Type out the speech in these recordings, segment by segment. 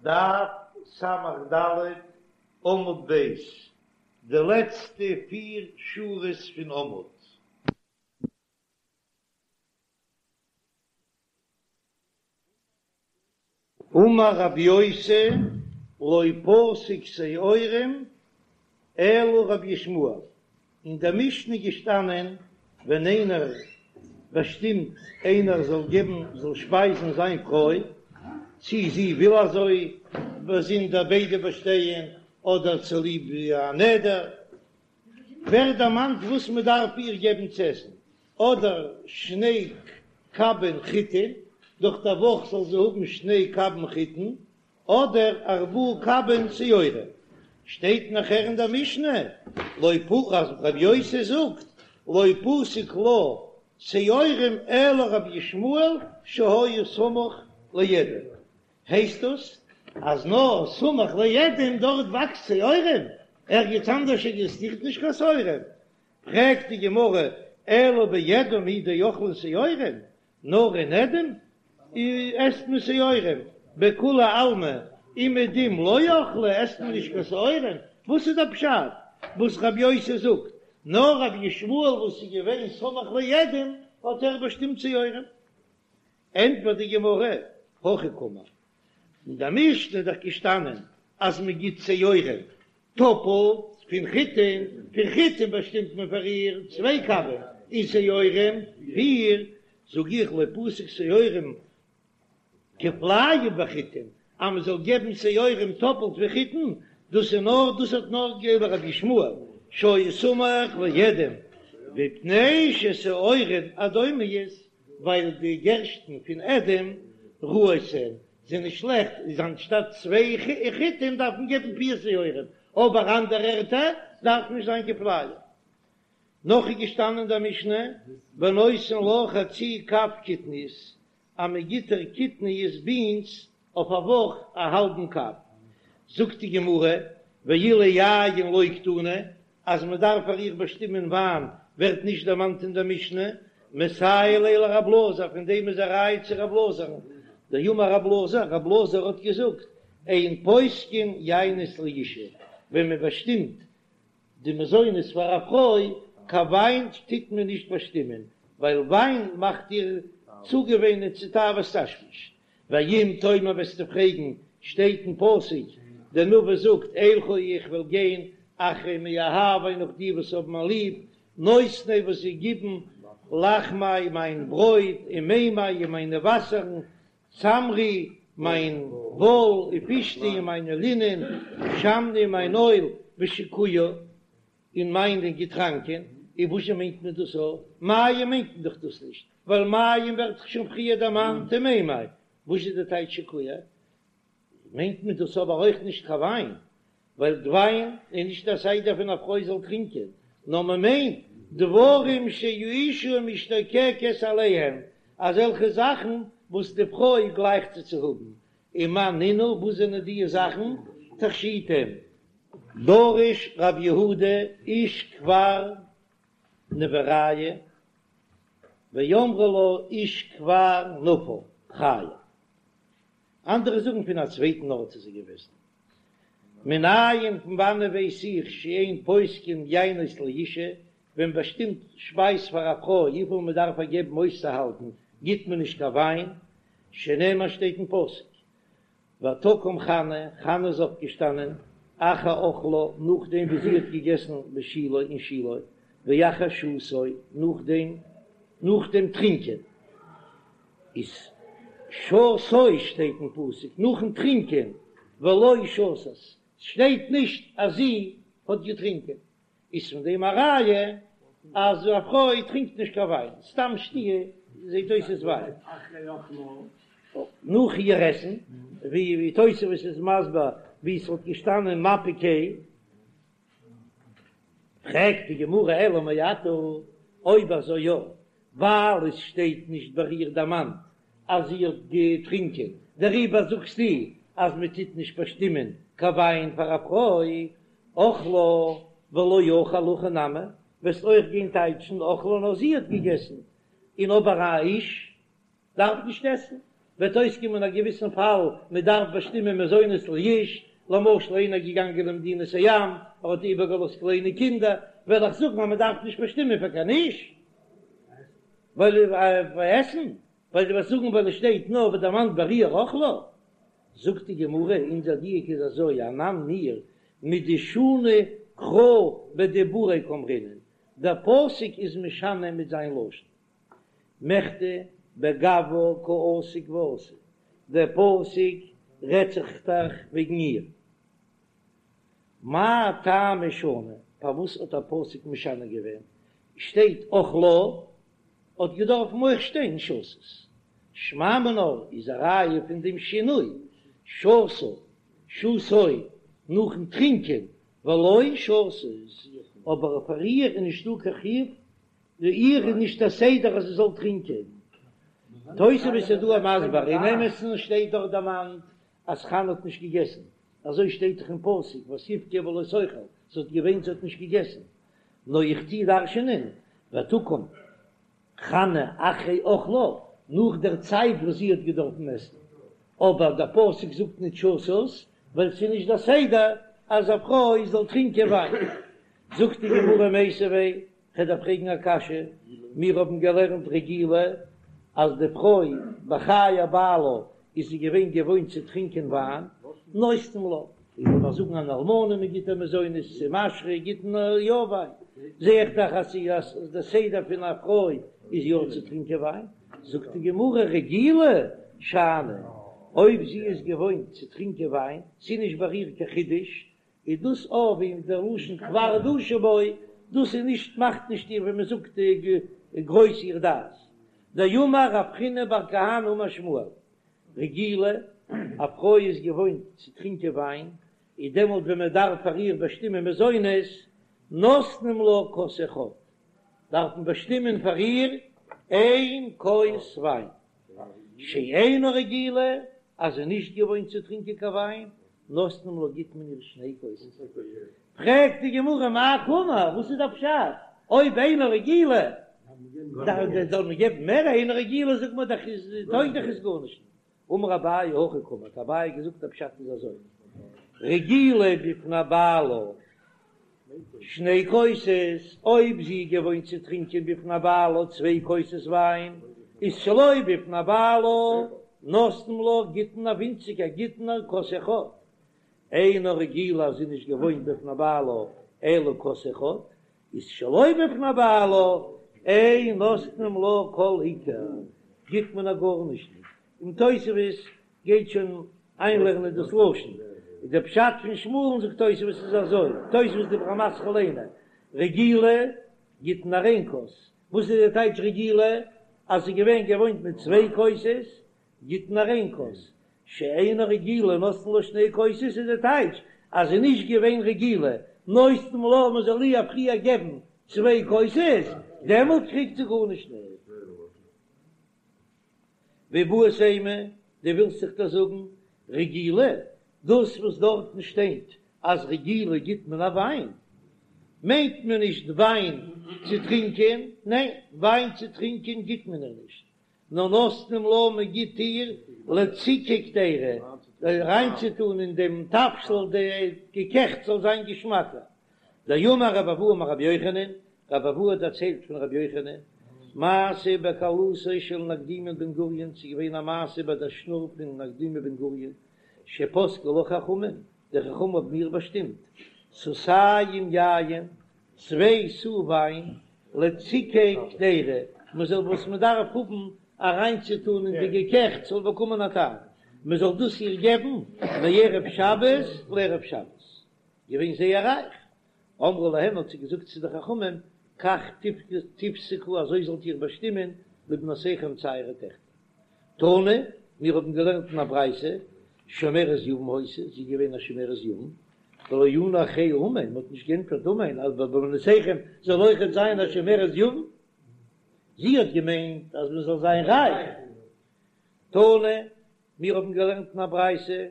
דף ס"ד עמוד ב', די לעצטע פיר שורות פון עמוד. אמר רבי יוסי, לא פסק שעורים אלא רבי ישמעאל, אין דער משנה איז געשטאנען ווען איינער באשטימט איינער זאל געבן זאל שפייזן זיין פרוי, צי זי וויל אזוי באזונדער ביידע באשטייען אדער צוליב א נדר, ווערט דערמאנט וואס מען דארף איר געבן צו עסן, אדער שני קבין חיטין, דורך דער וואך זאל זי האבן שני קבין חיטין, אדער ארבעה קבין שעורים. שטייט נאכער אין דער משנה, לא פ אז רבי יוסי זאגט, לא פסק לה שעורים אלא רבי ישמעאל שהיה סמוך לאדום. הייסט דאס אז נאר סמוך לאדום דארט וואקסט שעורים? ערגעץ אנדערש עקזיסטירט נישט קיין שעורים? פרעגט די גמרא, אלא באדום הוא דאכלין שעורים, נאר אין אדום עסט מען שעורים, בכולי עלמא אומעדום לא אכלי עסט מען נישט קיין שעורים, וואס איז דער פשט וואס רבי יוסי זאגט, נאר רבי ישמעאל וואס איז געווען סמוך לאדום האט ער באשטימט שעורים? ענטפערט די גמרא, הכי קאמר, אין דער משנה איז דאך געשטאנען אז מען גיט שעורים טאפלט פון חיטין, פון חיטין באשטימט מען פאר איר צוויי קבין, און שעורים פיר, זאג איך לא פסק שעורים כפליים בחיטין, אז מען זאל געבן שעורים טאפלט ווי חיטין, דאס איז נאר דאס האט נאר געגעבן רבי ישמעאל שהיה סמוך לאדום, מפני ששעורין אדומיות, ווייל די גערשטן פון אדום רעות הן זענען שלעכט, איז אנשטאט צוויי חיטים דארף מען געבן פיר שעורים, אבער אנדערע ערטער דארף נישט זיין כפליים. נאך איז געשטאנען אין דער משנה ונותן לה חצי קב קטניות, אז מען גיט איר קטניות בינס אויף א וואך א האלבן קב. זאגט די גמרא, ואילו יין לא קתני, אז מען דארף פאר איר באשטימען וויין ווערט נישט דערמאנט אין דער משנה, מסייע ליה לרב אלעזר, פון דעם איז א ראיה צו רב אלעזר'ן, דאמר רב אלעזר, רב אלעזר האט געזאגט, אין פוסקין יינות לאשה, ווען מען באשטימט די מזונות פאר א פרוי, קיין וויין טוט מען נישט באשטימען, ווייל וויין מאכט איר צוגעוואינען צו תאוות תשמיש. ואם תאמר וועסטו פרעגן, שטייט אין פסוק, דער נביא זאגט, אלכה איך וועל גיין אחרי מאהבי נאך די וואס האבן מיר ליב, נותני וואס זיי גיבן, לחמי מיין ברויט, ומימי און מיינע וואסערן, צמרי מיין וואל, ופשתי און מיינע לינען, שמני מיין אויל, ושקויי און מיינע געטראנקען, און וואזשע מיינט מען דאס א? מים מיינט מען דאך דאס נישט, ווייל מים ווערט דאך שוין פריער דערמאנט אין מימי, וואס איז די טייטש שקויי? מיינט מען דאס אבער אויך נישט קיין וויין, ווייל וויין איז נישט א סדר פון א פרוי זאל טרינקען, נאר מען מיינט דברים שהאשה משתוקקת עליהם, אזעלכע זאכן וואס די פרוי גלייכט צו צו האבן, ומאי נינהו, וואס זענען די זאכן? תכשיטים. דרש רב יהודה איש כפר נבוריא ואמרי לה איש כפר נפל חייא. אנדערע זאגן פון א צווייטן ארט איז ער געוועזן. מנין פון וואנען ווייס איך שאין פוסקין יינות לאשה, ווען מ'באשטימט שפייז פאר א פרוי וויפיל מען דארף איר געבן אויסצוהאלטן גיט מען נישט קיין וויין, שנאמר שטייט אין פסוק ותקם חנה, חנה איז אויפגעשטאנען, אחר אכלה, נאכדעם ווי זי האט געגעסן בשילה אין שילה, ואחר שתו, נאכדעם נאך דעם טרינקען, איז שתו שטייט אין פסוק, נאכן טרינקען, ולא שתת, שטייט נישט אז זי האט געטרינקען. איז פון דעם א ראיה אז א פרוי טרינקט נישט קיין וויין, סתם שתיה זעט אויס איז וויין. נאך איר עסן, ווי תוספות איז מסביר ווי ס'וואלט געשטאנען מפיק. פרעגט די גמרא אלא מעתה, אויב אזוי יא, ווייל עס שטייט נישט ביי איר דערמאנט אז זי האט געטרינקען, דעריבער זאגסטו אז מען טוט נישט באשטימען קיין וויין פאר א פרוי, אכלה ולא אכל הכי נמי, וועסט אויך גיין טייטשן אכלה נאר זי האט געגעסן, און אבער א איש דארף נישט עסן. וועט אויסקומען א געוויסן פאל מען דארף באשטימען מזונות לאיש, למשל איינער איז געגאנגען למדינת הים, ער האט איבערגעלאזט קליינע קינדער, וועל איך זאגן אז מען דארף נישט באשטימען פאר קיין איש, ווייל עסן, ווייל דו וועסט זאגן ווייל עס שטייט נאר ווערט דערמאנט ביי איר אכלה. זאגט די גמרא, אונזער דיוק איז אזוי, אנן מיר מדשני קרא בדיבוריה קאמרינן, דער פסוק איז משנה מיט זיין לשון, מכדי בגווה קא עסיק ואתי, דער פסוק רעדט זיך דאך וועגן איר. מאי טעמא שני, פארוואס האט דער פסוק משנה געווען, שטייט אכלה, האט געדארפן אויך שטיין שתת. שמע מינה איז א ראיה פון דעם שינוי, שתה, שתוי, נאכן טרינקען, ולא שתת, אבער פאר איר איז נישטא קיין חיוב, איר איז נישט א סדר אז זי זאל טרינקען. תוספות איז דא מסביר, אין אמת'ן שטייט דארט דערמאנט אז חנה האט נישט געגעסן, אזוי שטייט דאך אין פסוק ותבכה ולא תאכל, זי האט געוויינט זי האט נישט געגעסן, נאר איך טוה דרש'ענען ותקם חנה אחרי אכלה, נאך דער צייט וואס זי האט געדארפן עסן, אבער דער פסוק זאגט נישט שתת, ווייל ס'איז נישט דער סדר אז א פרוי זאל טרינקען וויין. זאגט די גמרא מיתיבי, כ'וועל דיר פרעגן א קשיא, מיר האבן געלערנט רגילה אז די פרוי בחיי בעלה איז זי געווען געוואוינט צו טרינקען וויין, נותנים לה, איך וועל נאר זאגן אן אלמנה מען גיט איר מזונות צו משרה גיט מען איר יא וויין, זע איך דאך אז ס'איז די סדר פון א פרוי איז יא צו טרינקען וויין, זאגט די גמרא רגילה שאני, אויב זי איז געוואוינט צו טרינקען וויין, ס'איז נישט ביי איר קיין חידוש, איז דאס אויך ווי דער לשון כבר דשו בו, דאס איז נישט מאכט נישט איר ווי מען זאגט גרויס איר דעת. דאמר רב חיננא בר כהנא אמר שמואל, רגילה, א פרוי איז געוואוינט צו טרינקען וויין, איז דעמאלט ווען מען דארף פאר איר באשטימען מזונות, נותנים לה כוס אחד, דארף מען באשטימען פאר איר איין כוס וויין. שאינה רגילה, אז זי איז נישט געוואוינט צו טרינקען קיין וויין, נותנים לה גיט מען איר שני כוסות. פרעגט די גמרא מאי קאמר, וואס איז דער פשט? אויב אינה רגילה זאל מען געבן מער, אינה רגילה זאגט מען דאך איז טויג דאך עס גארנישט. אמר אביי הכי קאמר, האט אביי געזאגט דער פשט איז אזוי, רגילה בפני בעלה שני כוסות, אויב זי איז געוואוינט צו טרינקען בפני בעלה צוויי כוסות וויין, איז שלא בפני בעלה נותנים לה גיט מען איר ווינציגער גיט מען איר כוס אחד, אינה רגילה אז זי איז נישט געוואוינט בפני בעלה אלא כוס אחד, איז שלא בפני בעלה אין נותנים לה כל עיקר, גיט מען איר גארנישט נישט, און תוספות גייט שוין איינלערנען דאס לשון, איז דער פשט פון שמואל'ן זאגט תוספות איז אזוי, תוספות דיבור המתחיל אינו רגילה גיט מען איר איין כוס, וואס איז די טייטש רגילה? אז זי איז געווען געוואוינט מיט צוויי כוסות גיט מען איר איין כוס, שאינה רגילה נותנין לה שני כוסות איז די טייטש אז זי איז נישט געווען רגילה נותנים לה מען זאל איר פריער געבן צוויי כוסות דעמאלט קריגט זי גארנישט נישט. ואיבעית אימא, דו ווילסט זיך דאס זאגן רגילה, דאס וואס דארטן שטייט אז רגילה גיט מען א וויין, מיינט מען נישט וויין צו טרינקען, ניין, וויין צו טרינקען גיט מען איר נישט, נאר נותנים לה מען גיט איר לציקי קדירה, אריינצוטאן אין דעם תבשיל די געקעכטס זאל זיין געשמאקער. דאמר רבי אבהו אמר רבי יוחנן, רבי אבהו האט דערציילט פון רבי יוחנן, מעשה בכלתו של נקדימון בן גוריון, ס'איז געווען א מעשה ביי דער שנור פון נקדימון בן גוריון, שפסקו לה חכמים, די חכמים האבן איר באשטימט, סאתים יין, צוויי סאה וויין, לציקי קדירה, מען זאל וואס מען דארף האבן אריינצוטאן אין די געקעכטס זאל באקומען א טעם, מען זאל דאס איר געבן מערב שבת לערב שבת, געווען זייער רייך, אמרה להם האט זי געזאגט צו די חכמים, כך תפסקו אזוי זאלט איר באשטימען לבנותיכם צו אייערע טעכטער. תנא, מיר האבן געלערנט אין א ברייתא, שומרת יבם היתה, זי איז געווען א שומרת יבם, ולא ענו אחריה אמן, מען האט נישט געענטפערט אמן אז ביי בנותיכם זאל אויכעט זיין א שומרת יבם, זי האט געמיינט אז מען זאל זיין רייך. תנא, מיר האבן געלערנט אין א ברייתא,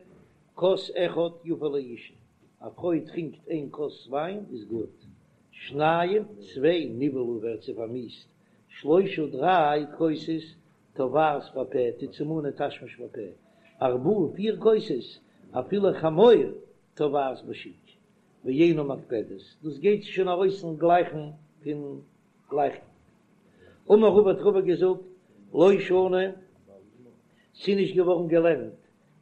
כוס אחד יפה לאשה, א פרוי טרינקט איין כוס וויין איז גוט, שניים, צוויי, נבעלה ווערט זי פארמיאוסט, שלושה, דריי כוסות. תובעת בפה, טוט זי מאנען תשמיש בפה, ארבעה פיר כוסות, אפילו חמור תובעת בשוק, ואינה מקפדת, דאס גייט שוין ארויס אין גלייכן פון גלייכן. אמר רבא האט רבא געזאגט, לא שנו, ס'איז נישט געווארן געלערנט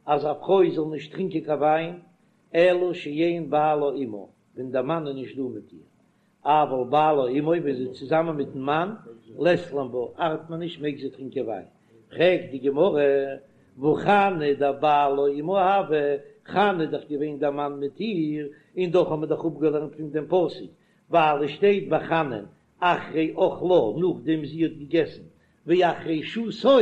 אז א פרוי זאל נישט טרינקען קיין וויין, אלא שאין בעלה עמה, ווען דער מאן איז נישט דא מיט איר, אבל בעלה עמה, ווען זי איז צוזאמען מיטן מאן, לית לן בה, ארט מען נישט, מעג זי טרינקען וויין. פרעגט די גמרא, והא חנה דבעלה עמה הוה, חנה איז דאך געווען דער מאן מיט איר, און דאך האט מען דאך אפגעלערנט פון דעם פסוק, ווייל עס שטייט ביי חנה'ן אחרי אכלה נאכדעם זי האט געגעסן, ואחרי שתו,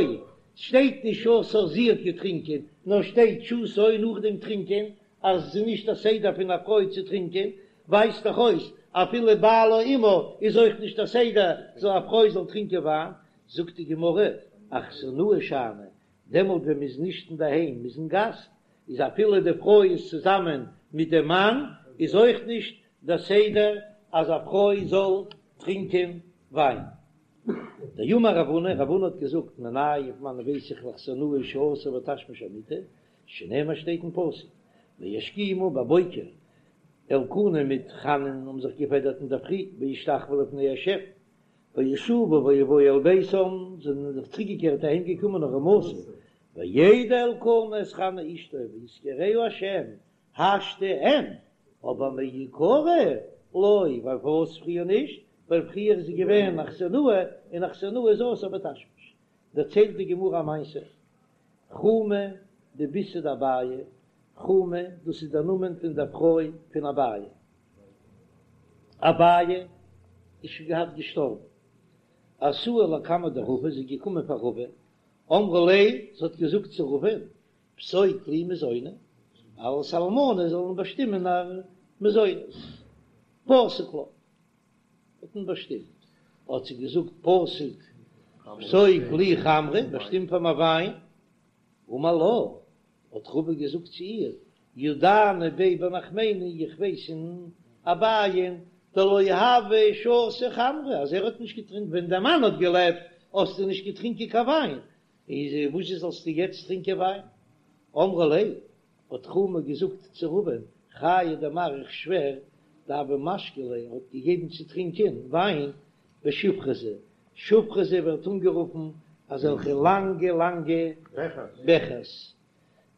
שטייט נישט שתה זי האט געטרינקען, נאר שטייט שתו נאכדעם טרינקען, אז עס איז נישט א סדר פון א פרוי צו טרינקען, ווייזט דאך אויס אפילו בעלה עמה איז אויך נישט א סדר זאל א פרוי זאל טרינקען וויין, זאגט די גמרא, אכסנאי שאני, דעמאלט ווען מען איז נישט אינדערהיים מען איז אין גאסט, איז אפילו די פרוי איז צוזאמען מיט דעם מאן איז אויך נישט דער סדר אז א פרוי זאל טרינקען וויין. דאמר רב הונא, רב הונא האט געזאגט, מנין פון וואנען ווייס איך לאכסנאי שאסור בתשמיש המיטה, שנאמר שטייט אין פסוק, וישכימו בבוקר, אלקנה מיט חנה'ן האבן זיך געפעדערט אינדערפרי, וישתחוו לפני השם, וישובו ויבואו אל ביתם, זענען זיך צוריקגעקערט אהיים געקומען הרמתה, וידע אלקנה את חנה אשתו ויזכרה השם, השתא אין, אבער מעיקרא לא, ווייל פארוואס פריער נישט, ווייל פריער איז זי געווען אכסנאי, און אכסנאי איז אסור בתשמיש. דערציילט די גמרא א מעשה, חומא דביתהו דאביי, חומא דאס איז דער נאמען פון דער פרוי פון אביי, אביי איז שוין געהאט געשטארבן, אתא לקמיה דרבא, זי איז געקומען פאר רבא, אמרה ליה, זי האט געזאגט צו רבא'ן, פסוק לי מזוני, אלס אלמנה זאל מען באשטימען א מזונות, פסק לה, האט מען באשטימט, האט זי געזאגט פסוק פסוק לי חמרא, באשטים פאר מיר וויין, אמר לה, האט רבא געזאגט צו איר, ידענא ביה בנחמני, איך ווייס אין אביי'ן, דלא הוה שתי חמרא, אז ער האט נישט געטרינקט ווען דער מאן האט געלעבט, האסטו נישט געטרינקען קיין וויין, איז וואס זאלסטו יעצט טרינקען וויין? אמרה ליה, האט חומא געזאגט צו רבא'ן, חיי דמר איך שווער, דהוה משקי ליה האט געגעבן צו טרינקען וויין בשופרזי, שופרזי ווערט אנגערופן אזעלכע לאנגע לאנגע בעכערס,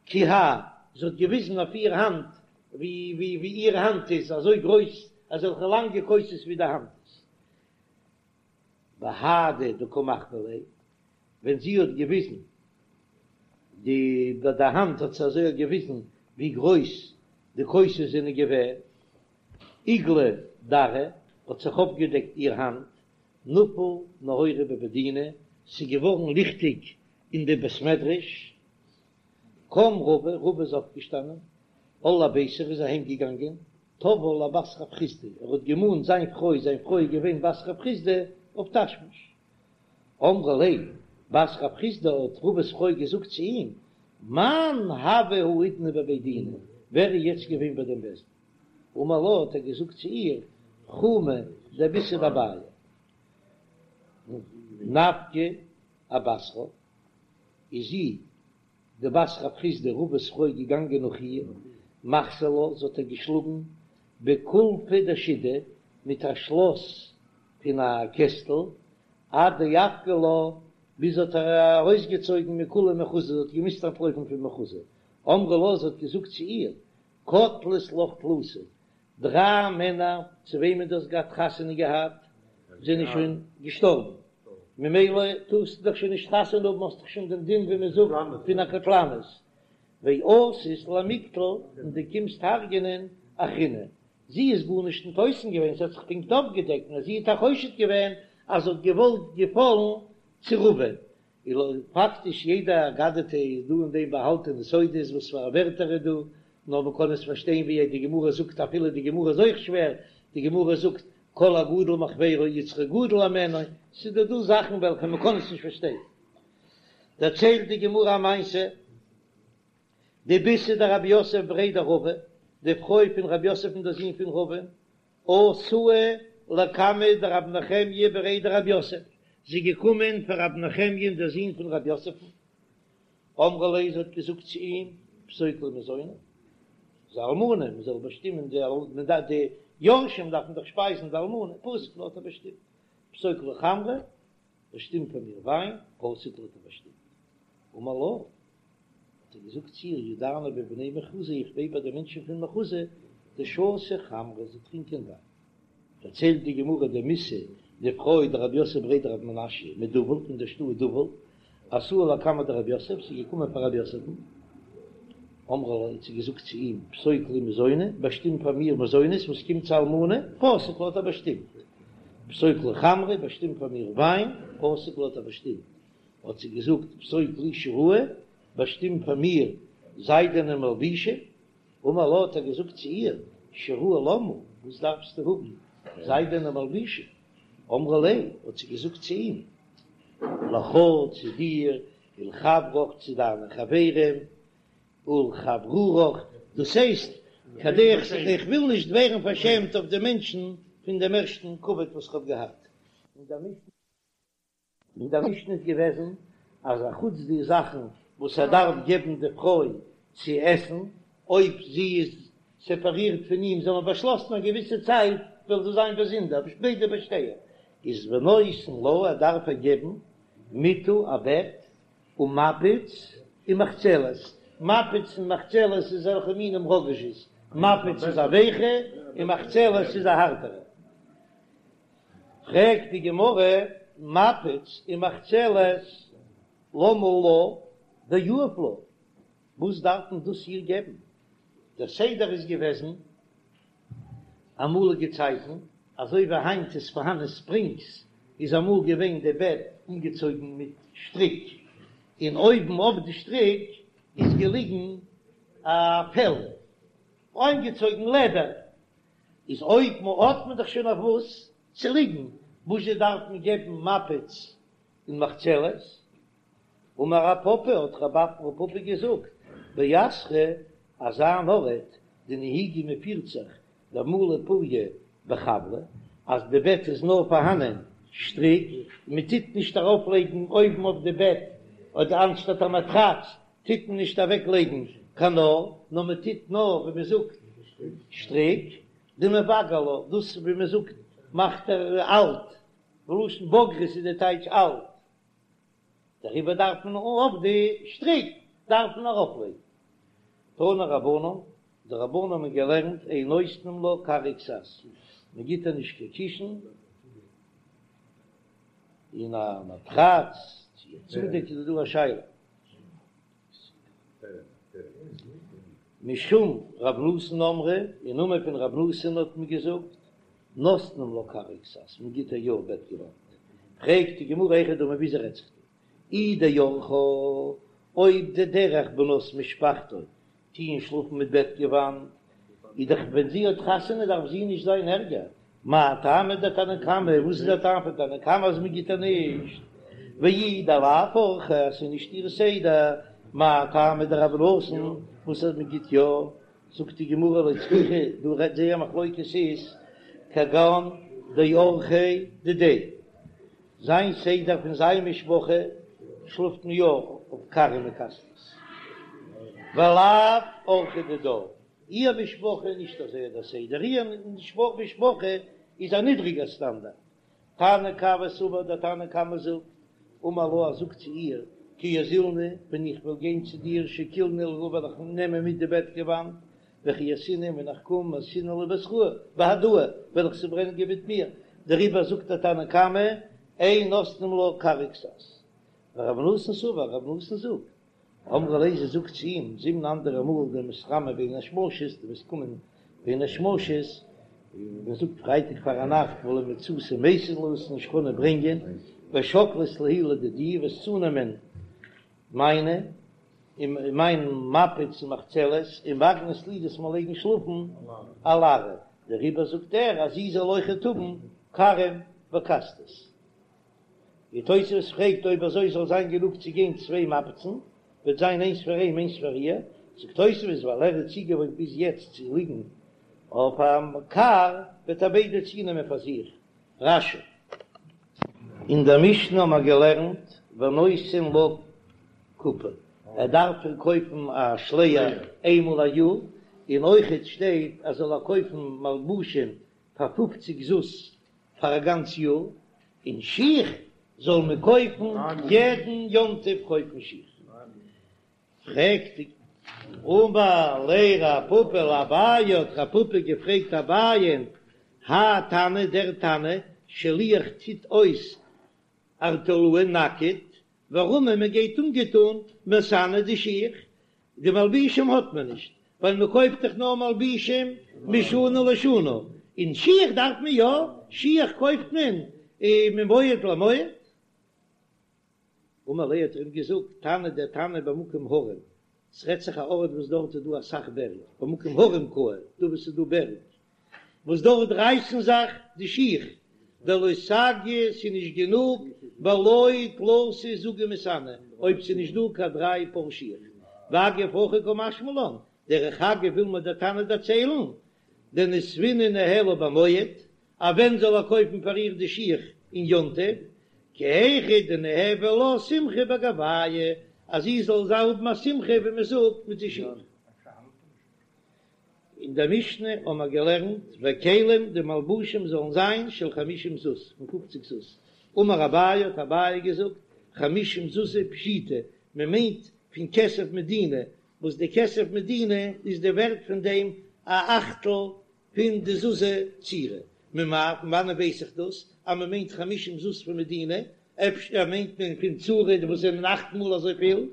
כי הא, זי האט געוויזן אויף איר האנט ווי ווי איר האנט איז אזוי גרויס, אזעלכע לאנגע כוסות ווי די האנט איז. בהדי דקא מחויא ליה, ווען זי האט געוויזן די ביי די האנט האט זי אזוי געוויזן ווי גרויס די כוסות זענען געווען, איגלא דרעה האט זיך אויפגעדעקט איר האנט, נפל נהורא בבי דינא, ס'איז געווארן ליכטיג אין די בית מדרש, קם רבא, רבא איז אויפגעשטאנען, על לביתיה ער איז אהיים געגאנגען, תבעה לבת רב חסדא, ער האט געמאנט זיין פרוי, זיין פרוי איז געווען בת רב חסדא, אויף תשמיש. אמרה ליה, בת רב חסדא האט רבא'ס פרוי געזאגט צו אים, מאן הוה האידנא בבי דינא, ווער איז יעצט געווען ביי דעם בית דין? אמר לה האט ער געזאגט צו איר, חומא דביתהו דאביי. נפקא אבתרה, איז זי, די בת רב חסדא רבא'ס פרוי געגאנגען נאך איר, מחתה לה, זי האט איר געשלאגן בקולפא דשידא, מיט א שלאס פון א קעסטל, עד דאפקה לה, ביז האט איר ארויסגעצויגן מכולה מחוזא, זי האט געמוזט אנטלויפן פון מחוזא, אמרה לה, זי האט געזאגט צו איר, קטלת לך תלתא, דריי מענער צו וועמען דו האסט געהאט חתונה געהאט זענען שוין געשטארבן, ממילא טארסטו דאך שוין נישט חתונה האבן, האסט דאך שוין דעם דין ווי מען זאגט פון א קטלנית, ואתית למיקטל, און דו קומסט הרג'ענען אחריני, זי איז גארנישט ניט אויסן געווען, זי האט זיך פונקט אויפגעדעקט, נאר זי האט איר חושד געווען אז זי האט געוואלט געפאלן צו רבא'ן, און פאקטיש יעדע אגדתא איז דא אין דעם באהאלטענע סודות וואס פאר א ווערטער איז דא, נאר מען קען עס פארשטיין ווי די גמרא זאגט אפילו די גמרא איז אויך שווער, די גמרא זאגט כל הגדול מחבירו יצרו גדול הימנו, ס'איז דא דא זאכן וועלכע מען קען עס נישט פארשטיין. דערציילט די גמרא א מעשה, דביתהו דרב יוסף בריה דרבא, די פרוי פון רב יוסף דער זון פון רבא, אתאי לקמיה דרב נחמיה בריה דרב יוסף, זי איז געקומען פאר רב נחמיה'ן דער זון פון רב יוסף'ן, אמרה ליה, זי האט געזאגט צו אים, פסוק לי מזוני, זי איז א אלמנה, מען זאל באשטימען די אלמנה, די יורשים דארפן דאך שפייזן די אלמנה, פסק לה האט ער באשטימט, פסוק לי חמרא, באשטימט פאר מיר וויין, פסק לה האט ער באשטימט. אמר לה, האט ער געזאגט צו איר, ידענא בבני מחוזא, איך ווייס ביי די מענטשן פון מחוזא, דשתו חמרא, זיי טרינקען וויין. דערציילט די גמרא דמיתא די פרוי דרב יוסף בריה דרב מנשיא מדובל פון דער שטאט דובל, אתא לקמיה דרב יוסף, ס'איז געקומען פאר רב יוסף'ן, אמרה ליה האט זי געזאגט צו אים, פסוק לי מזוני, באשטים פאר מיר מזונות וואס קומט צו אלמנה, פסק לה האט ער באשטימט, פסוק לי חמרא, באשטים פאר מיר וויין, פסק לה האט ער באשטימט, האט זי געזאגט, פסוק לי שיראי, באשטים פאר מיר זיידענע מלבושים, אמר לה האט ער געזאגט צו איר, שיראי למה, וואס דארפסטו האבן זיידענע מלבושים? אמרה ליה, האט זי געזאגט צו אים, לך צו דיר, ולחברך צו דיינע חברים, ולחברורך, דאס הייסט, כדי איך וויל נישט ווערן פארשעמט אויף די מענטשן פון דעם ערשטן כבוד וואס איך האב געהאט. אין דער משנה איז געוועזן אז א חוץ די זאכן וואס ער דארף געבן די פרוי צו עסן, אויב זי איז סעפערירט פון אים, זיי האבן באשלאסן א געוויסע צייט וועלן זיי זיין באזונדער, ביידע בשתיה, איז ונותן לה, ער דארף איר געבן מיטה א בעט, ומפץ ומחצלת, מפץ און מחצלת איז אזעלכע מינים ראגאזשעס, מפץ איז א ווייכע און מחצלת איז א הארטערע. פרעגט די גמרא, מפץ ומחצלת למה לה דיהיב לה, וואס דארף מען דאס איר געבן? דער סדר איז געוועזן אמאליגע צייטן, אזוי ווי היינט איז פארהאן ספרינגס, איז אמאל געווען די בעט אנגעצויגן מיט שטריק, און אויבן אויף די שטריק איז געליגן א פעל, אנגעצויגן לעדער, איז אויב מ'האט מען דאך שוין אויף וואס צו ליגן, וואזשע דארף מען געבן מפץ און מחצלת? אמר רב פפא, האט רב פפא געזאגט, באתרא אזא אן ארט דנהיגי מ'פירט זיך דמלו פוריא בחבלא, אז די בעט איז נאר פארהאנען שטריק, מען טוט נישט ארויף לייגן אויבן אויף די בעט אדער אנשטאט א מאטראץ טוט מען נישט אוועק לייגן קיין נאר, נאר מען טוט נאר ווי מען זאגט שטריק, דמבגר לה, דאס ווי מען זאגט מאכט ער אלט, בלשון בגרות איז די טייטש אלט, דעריבער דארף מען אויף די שטריק דארף מען ארויף לייגן. תנו רבנן, די רבנן האבן געלערנט אין נותנים לה כר וכסת, מען גיט איר נישט קיין קישן, און א מאטראץ, צו א צודעק איז דא א שאלה. משום רב נתן אמרו, אין נאמען פון רב נתן האט מען געזאגט, נותנים לה כר וכסת, מען גיט איר יא בעטגעוואנט. פרעגט די גמרא היכי דמי וויאזוי רעדט זיך דא? אי דאורחה, אויב די דרך בנות משפחתו טוען שלאפן מיט בעטגעוואנט, איז דאך ווען זי האט חתונה דארף זי נישט זיין ערגער, מאי טעמא דתנא קמא, וואס איז דער טעם פון תנא קמא אז מען גיט איר נישט? ואי דלאו אורחה אז ס'איז נישט איר סדר, מאי טעמא דרב נתן וואס אז מען גיט יא? זאגט די גמרא לא צריכא, דא רעדט זייער מחלוקת איז כגון דאורחיה דידיה, זיין סדר פון זיין משפחה שלאפט מען יא אויף כרים וכסתות, ולאו אורחה דידה, איר משפחה איז נישט אזוי דער סדר, איר משפחה איז א נידריגער סטאנדארט. תנא קמא סבר, דער תנא קמא זאגט, אמר לה, ער זאגט צו איר, כי אזילנא, ווען איך וועל גיין צו דיר, שקילנא להו וועל איך נעמען מיט די בעטגעוואנט, וכי אתינא, ווען איך קום, מייתינא להו בתראי, בהדאי, וועל איך זיי ברענגען מיט מיר, דעריבער זאגט דער תנא קמא, אין נותנים לה כר וכסת. ורב נתן סבר, רב נתן זאגט, אמרה ליה זי זאגט צו אים, זימנא אנדערע מאל דמתרמי בין השמשות, דו וועסט קומען בין השמשות, ווי מען זאגט פרייטאג פארנאכט ולא מצית מייתית לי וועסט נישט קענען ברענגען, ושקלת להו לדידי, וועסט צונעמען מיינע, און מיין מפץ און מחצלת, ומגנית לי דו'סט מיר לייגן שלאפן על ארעא, דעריבער זאגט ער אז זי זאל אויכעט האבן כרים וכסתות. ווי תוספות פרעגט אויב אזוי זאל זיין גענוג צו גיין צוויי מפצן, וועט זיין איינס פאר אים איינס פאר איר, זאגט תוספות ווייל ער איז צוגעוואוינט ביז יעצט צו ליגן אויף א כר וועט ער ביידע צונעמען פאר זיך. רש"י. אין דער משנה האבן מיר געלערנט ונותן לה קופה, ער דארף איר קויפן א שלייער איינמאל א יאר, און אויכעט שטייט אז זאל ער קויפן מלבושים פאר פופציג זוז פאר א גאנץ יאר, און שיך זאל מען קויפן יעדן יום טוב קויפן שיך. פרעגט די אמר ליה רב פפא לאביי, האט רב פפא געפרעגט אביי'ן, האי תנא דער תנא שליח טוט אויס ערטלאי נאקעט, ורמי מען גייט אנגעטון מסאני די שיך, די מלבישים האט מען נישט, ווייל מען קויפט דאך נאר מלבישים משנה לשנה, און שיך דארף מען יא, שיך קויפט מען ממועד למועד. אמר ליה האט ער אים געזאגט, תנא דער תנא במקום הרים, ס'רעדט זיך א ארט וואס דארט איז דא אסאך בערג, במקום הרים קאי, דא וואו ס'איז דא בערג, וואס דארט רייסן זיך די שיך, דלא סגי ס'איז נישט גענוג, בלא תלתא זוגי מסאני, אויב ס'איז נישט דא קיין דריי פאר שיך. ואגב הכי קא משמע לן, דרך אגב וויל מיר דער תנא דערציילן, דנסבינהו ניהלה במועד, אז ווען זאל ער קויפן פאר איר די שיך אין יום טוב, כי היכי דניהוו לה שמחה בגוייהו, אז זי זאל זיי האבן א שמחה ווי מען זאגט מיט די שיך. אין דער משנה האבן מיר געלערנט וכלים די מלבושים זאלן זיין של חמישים זוז, פון פופציג זוז, אמר אביי האט אביי געזאגט, חמישים זוזי פשיטא, מען מיינט פון כסף מדינה, וואס די כסף מדינה איז די ווערט פון דעם א אכטל פון די זוזי צורי, ממאי, פון וואנען ווייס איך דאס אז מען מיינט חמישים זוז פון מדינה, אפשר מיינט מען פון צורי וואס זענען אכט מאל אזויפיל?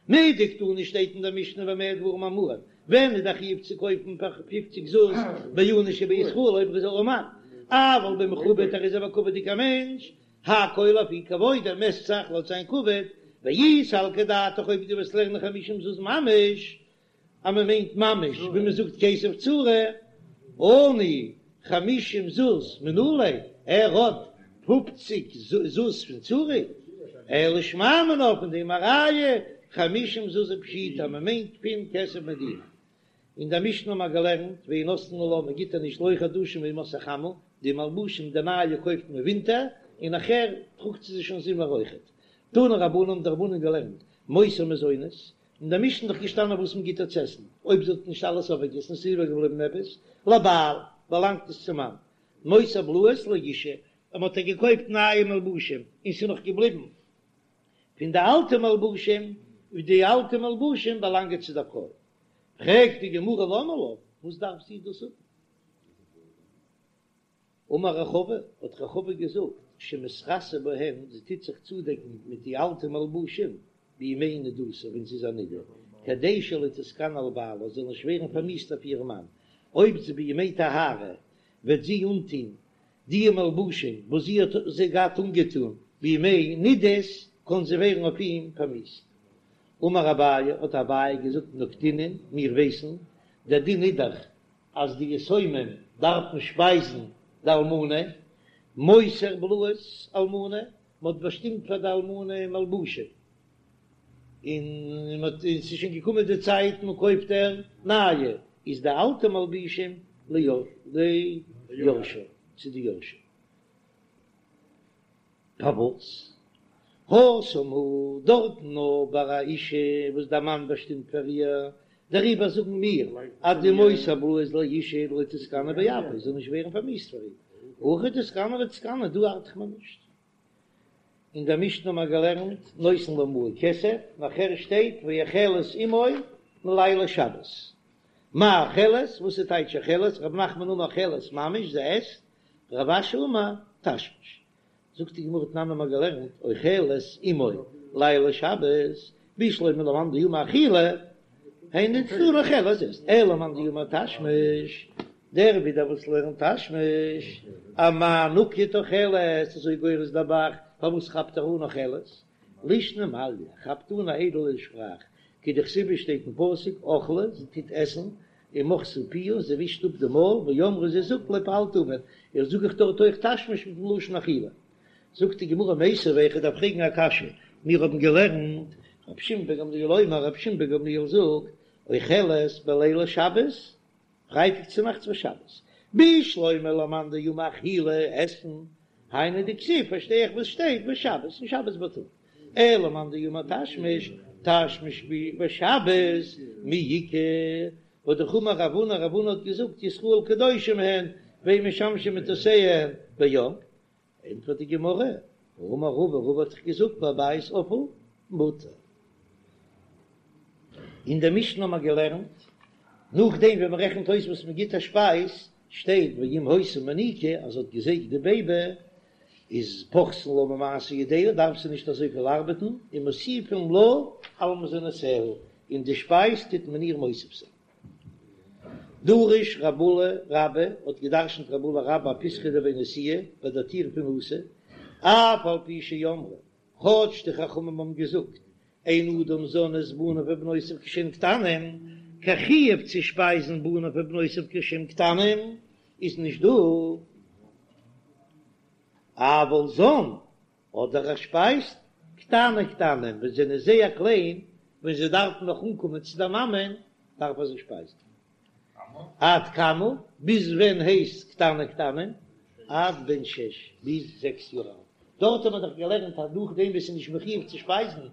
מדקתני שטייט אין דער משנה במה דברים אמורים, ווען איז דער חיוב צו קויפן פאר פופציג זוז בעני שבישראל אויב ער איז ארעמאן, אבל במכובד ער איז א בכבוד'יגער מענטש, הכל לפי כבודו מעסט זיך לויט זיין כבוד, ואי סלקא דעתך אויב דו וועסט לערנען חמישים זוז ממש, אז מען מיינט ממש ווי מען זאגט כסף צורי, עני חמישים זוז מנא ליה, ער האט פופציג זוז פון צורי, אלא שמע מינה פון דעם א ראיה חמישים זוז פשיטא אז מען מיינט פון כסף מדינה. אין דער משנה האבן מיר געלערנט ואין נותנין לה מען גיט איר נישט לא חדשים בימות החמה, די מלבושים די נייע קויפט מען ווינטער און נאכער טראגט זי זיי שוין זומער אויכעט. תנו רבנן האבן די רבנן געלערנט מותר מזונות, אין דער משנה איז דאך געשטאנען וואס מען גיט איר צו עסן, אויב זי האט נישט אלעס אויפגעגעסן און ס'איז איבערגעבליבן עפעס, לבעל, באלאנגט עס צום מאן. מותר בלאות לאשה, אויב מען האט איר געקויפט נייע מלבושים און ס'איז נאך געבליבן פון די אלטע מלבושים, די אלטע מלבושים באלאנגען צו דער פרוי. פרעגט די גמרא למה לה, וואס דארף זי דאס האבן? אמר רחבה, האט רחבה געזאגט, שמתכסה בהן, זי טוט זיך צודעקן מיט די אלטע מלבושים, בימי נדתה, ווען זי איז א נדה, כדי שלא תתגנה על בעלה, זאל נישט ווערן פארמיאוסט אויף איר מאן, אויב זי בימי טהרה וועט זי אנטון די מלבושים וואס זי האט זיי געהאט אנגעטון בימי נדות, קען זי ווערן אויף אים פארמיאוסט. אמר אביי, האט אביי געזאגט, נקטינן, מיר ווייסן, דער דין איז דאך אז די יתומים דארפן שפייזן די אלמנה, מותר בלאות אלמנה, מען האט באשטימט פאר די אלמנה מלבושים, און מען האט, און ס'איז שוין געקומען די צייט מען קויפט איר נייע, איז די אלטע מלבושים ליורשיה, צו די יורשים. פארוואס? התם הוא דארטן נאר ביי א אשה וואס דער מאן באשטימט פאר איר, דעריבער זאגן מיר אז די מותר בלאות לאשה דלא תתגנה באפיה זאל נישט ווערן פארמיאוסט פאר איר, הכא תתגנה ותתקנא דא ארט מען נישט. אין דער משנה האבן מיר געלערנט נותן לה מעה כסף, נאכער שטייט ואוכלת עמו מלילי שבת. מאי אוכלת? וואס איז טייטש אוכלת? רב נחמן אמר אוכלת ממש, זי עסט, רב אשי אמר תשמיש. זאגט די גמרא תנן האבן מיר געלערנט אוכלת עמו לילי שבת, בשלמא למאן דאמר אכילה, היינו דקתני אוכלת עסט, אלא למאן דאמר תשמיש, דער ווידער וואס לערנט תשמיש, אמאי נקט אוכלת, אזוי גורס דער ב"ח, פארוואס כאפט ער אן אוכלת? לישנא מעליא, כאפט אן א איידעלע שפראך, כדכתיב שטייט אין פסוק אכלה, זי טוט עסן, ומחתה פיה, זי ווישט אפ די מויל, ואמרה זי זאגט לא פעלתי און, איך זאג איך דארט אויך תשמיש מיטן לשון אכילה. זאגט די גמרא מיתיבי, איך דארף פרעגן א קשיא, מיר האבן געלערנט, רבי שמעון בן גמליאל אומר, רבי שמעון בן גמליאל זאגט, אוכלת בלילי שבת, פרייטאג צו נאכטס ושבת, בשלמא למאן דאמר אכילה, עסן. היינו דכתיב פארשטיי איך וואס שטייט בשבת און שבת בייטאג, אלא מאן דאמר תשמיש, תשמיש בשבת מי איכא, והא דאמר רב הונא, רב הונא האט געזאגט ישראל קדושים הן ואין משמשין מטותיהן ביום, ענטפערט די גמרא, האמר רבא, רבא האט דאך געזאגט בבית אפל מותר. אין דער משנה האט מען געלערנט, נאכדעם ווען מען רעכנט אויס וואס מען גיט א שפייז, שטייט ואם היתה מניקה אז זי האט געזייגט די בעיבי, איז פוחתין לה ממעשה ידיה, דארף זי נישט אזויפיל ארבעטן, און מוסיפין לה על מזונותיה, און די שפייז טוט מען איר מוסיף זיין. דרש רב עולא רבה האט געדרשנט רב עולא רבה אפיתחא דבי נשיאה ביי דער טיר פון נשיא, אף על פי שאמרו, כאטש די חכמים האבן געזאגט, אין אדם זן את בניו ובנותיו כשהם קטנים, קיין חיוב צו שפייזן בניו ובנותיו כשהם קטנים איז נישט דא, אבל זן אדער ער שפייזט קטני קטנים ווען זיי זענען זייער קליין, ווען זיי דארפן נאך אנקומען צו דער מאמען, דארף ער זיי שפייזן. עד כמה, ביז ווען הייסט קטני קטנים? עד בן שש, ביז זעקס יאר אלט. דארט האט מען דאך געלערנט אז נאכדעם וואס ס'איז נישט מחויב צו שפייזן,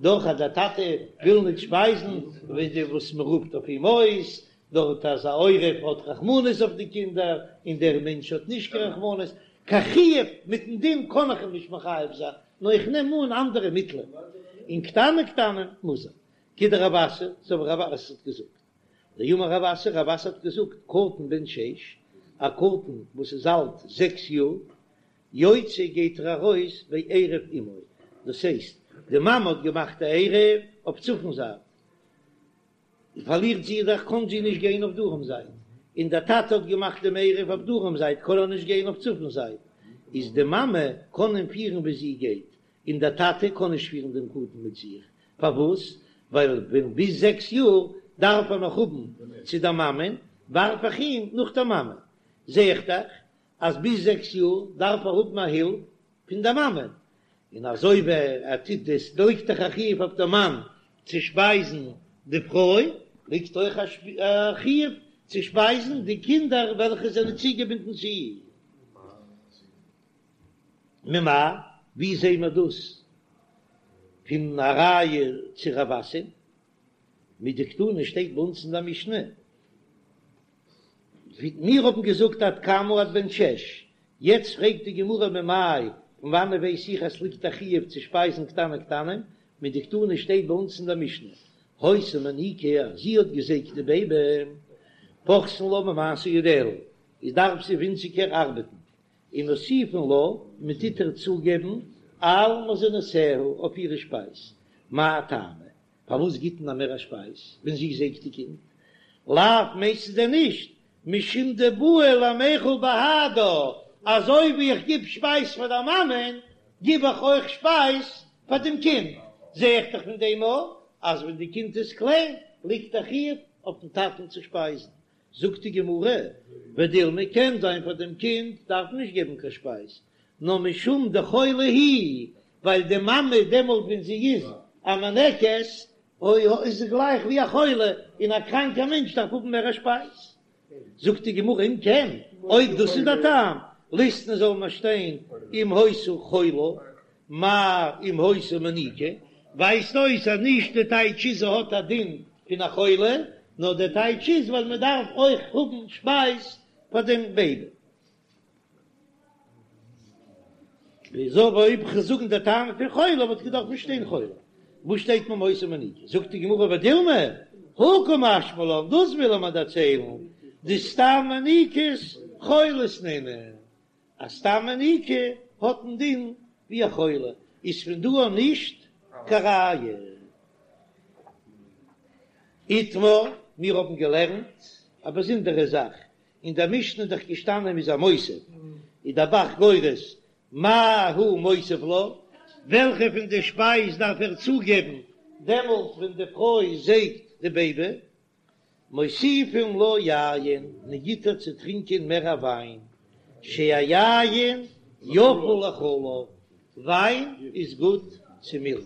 דאך אז דער טאטע וויל נישט שפייזן, ווי די וואס מען רופט אויף אים אויס דארט אז א עורב האט רחמנות אויף די קינדער און דער מענטש האט נישט קיין רחמנות, קיין חיוב מיטן דין קען איך אים נישט מחייב זיין, נאר איך נעם אן אנדערע מיטלען, און קטני קטנים מוז ער. כדרב אסי, אזוי ווי רב אסי האט געזאגט. דאמר רב אסי, רב אסי האט געזאגט, קטן בן שש, א קטן וואס איז אלט זעקס יאר, יוצא גייט ער ארויס בעירוב אמו, דאס הייסט די מאמע האט געמאכט א עירוב אויף צפון זייט, פארלירט זי דאך קען זי נישט גיין אויף דרום זייט, און דער טאטע האט געמאכט דעם עירוב אויף דרום זייט קען ער נישט גיין אויף צפון זייט, איז די מאמע קען אים פירן ווי זי גייט, און דער טאטע קען נישט פירן דעם קטן מיט זיך, פארוואס? ווייל ווען ביז זעקס יאר דארף ער נאך האבן צו דער מאמען, ווארף איך אים נאך דער מאמע, זע איך דאך אז ביז זעקס יאר דארף ער האבן א הילף פון דער מאמע, און אזוי ווי ער טוט דאס ליגט דאך א חיוב אויף דעם מאן צו שפייזן די פרוי, ליגט אויך א חיוב צו שפייזן די קינדער וועלכע זענען צוגעבינדן צו איר. ממאי, ווי זעהן מיר דאס פון א ראיה צו רב אסי? מדקתני שטייט ביי אונז אין דער משנה, ווי מיר האבן געזאגט עד כמה עד בן שש, יעצט פרעגט די גמרא ממאי, פון וואנעט ווייס איך אז ס'ליגט א חיוב צו שפייזן קטני קטנים, מדקתני שטייט ביי אונז אין דער משנה, היתה מניקה אז זי האט געזייגט די בעיבי, פוחתין לה ממעשה ידיה, איז דארף זי ווינציגער ארבעטן, און מוסיפין לה, מען טוט איר צוגעבן על מזונותיה אויף אירע שפייז, מאי טעמא? פארוואס גיט מען איר מער א שפייז ווען זי זייגט די קינד? לאו מיינסטו דען נישט משום דבעי למיכל בהדה, אזוי ווי איך גיב שפייז פאר דער מאמען גיב איך אויך שפייז פאר דעם קינד, זע איך דאך פון דעם אויך אז ווען די קינד איז קליין ליגט א חיוב אויפן טאטן צו שפייזן, זאגט די גמרא, ודילמא קען זיין פאר דעם קינד דארף מען נישט געבן קיין שפייז, נאר משום דחולה היא, ווייל די מאמע דעמאלט ווען זי איז א מינקת, איז זי גלייך ווי א חולה, און א קראנקער מענטש דארף האבן מער א שפייז. זאגט די גמרא, אם כן, אויב דאס איז דער טעם, ליתני זאל מען שטיין אם היתה חולה, מאי אם היתה מניקה, ווייזט אויס אז נישט די טייטש איז זי האט א דין פון א חולה, נאר די טייטש איז ווייל מען דארף אויך האבן שפייז פאר דעם בעיבי. וויאזוי אויב כ'זאל זאגן די טעם פון חולה וואלט געדארפט שטיין חולה, וואס שטייט אם היתה מניקה? זאגט די גמרא ודילמא, הא קא משמע לן, דאס וויל ער מיר דערציילן, דסתם מניקות חולות נינהו, אז סתם מניקה האט א דין ווי א חולה, איז פון דא אן נישט קיין ראיה. איתמר, מיר האבן געלערנט א באזונדערע זאך, אין דער משנה איז דאך געשטאנען מ'איז איר מוסיף, איז דער ב"ח גורס מה הוא מוסיף לה, וועלכע פון די שפייז דארף ער צוגעבן דעמאלט ווען די פרוי זייגט די בעיבי, מוסיפין לה יין, מען גיט איר צו טרינקען מער א וויין, שהיין יפה לחלב, וויין איז גוט צו מילך.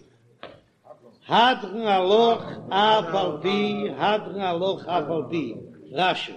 הדרן עלך אף על פי, הדרן עלך אף על פי, רש"י.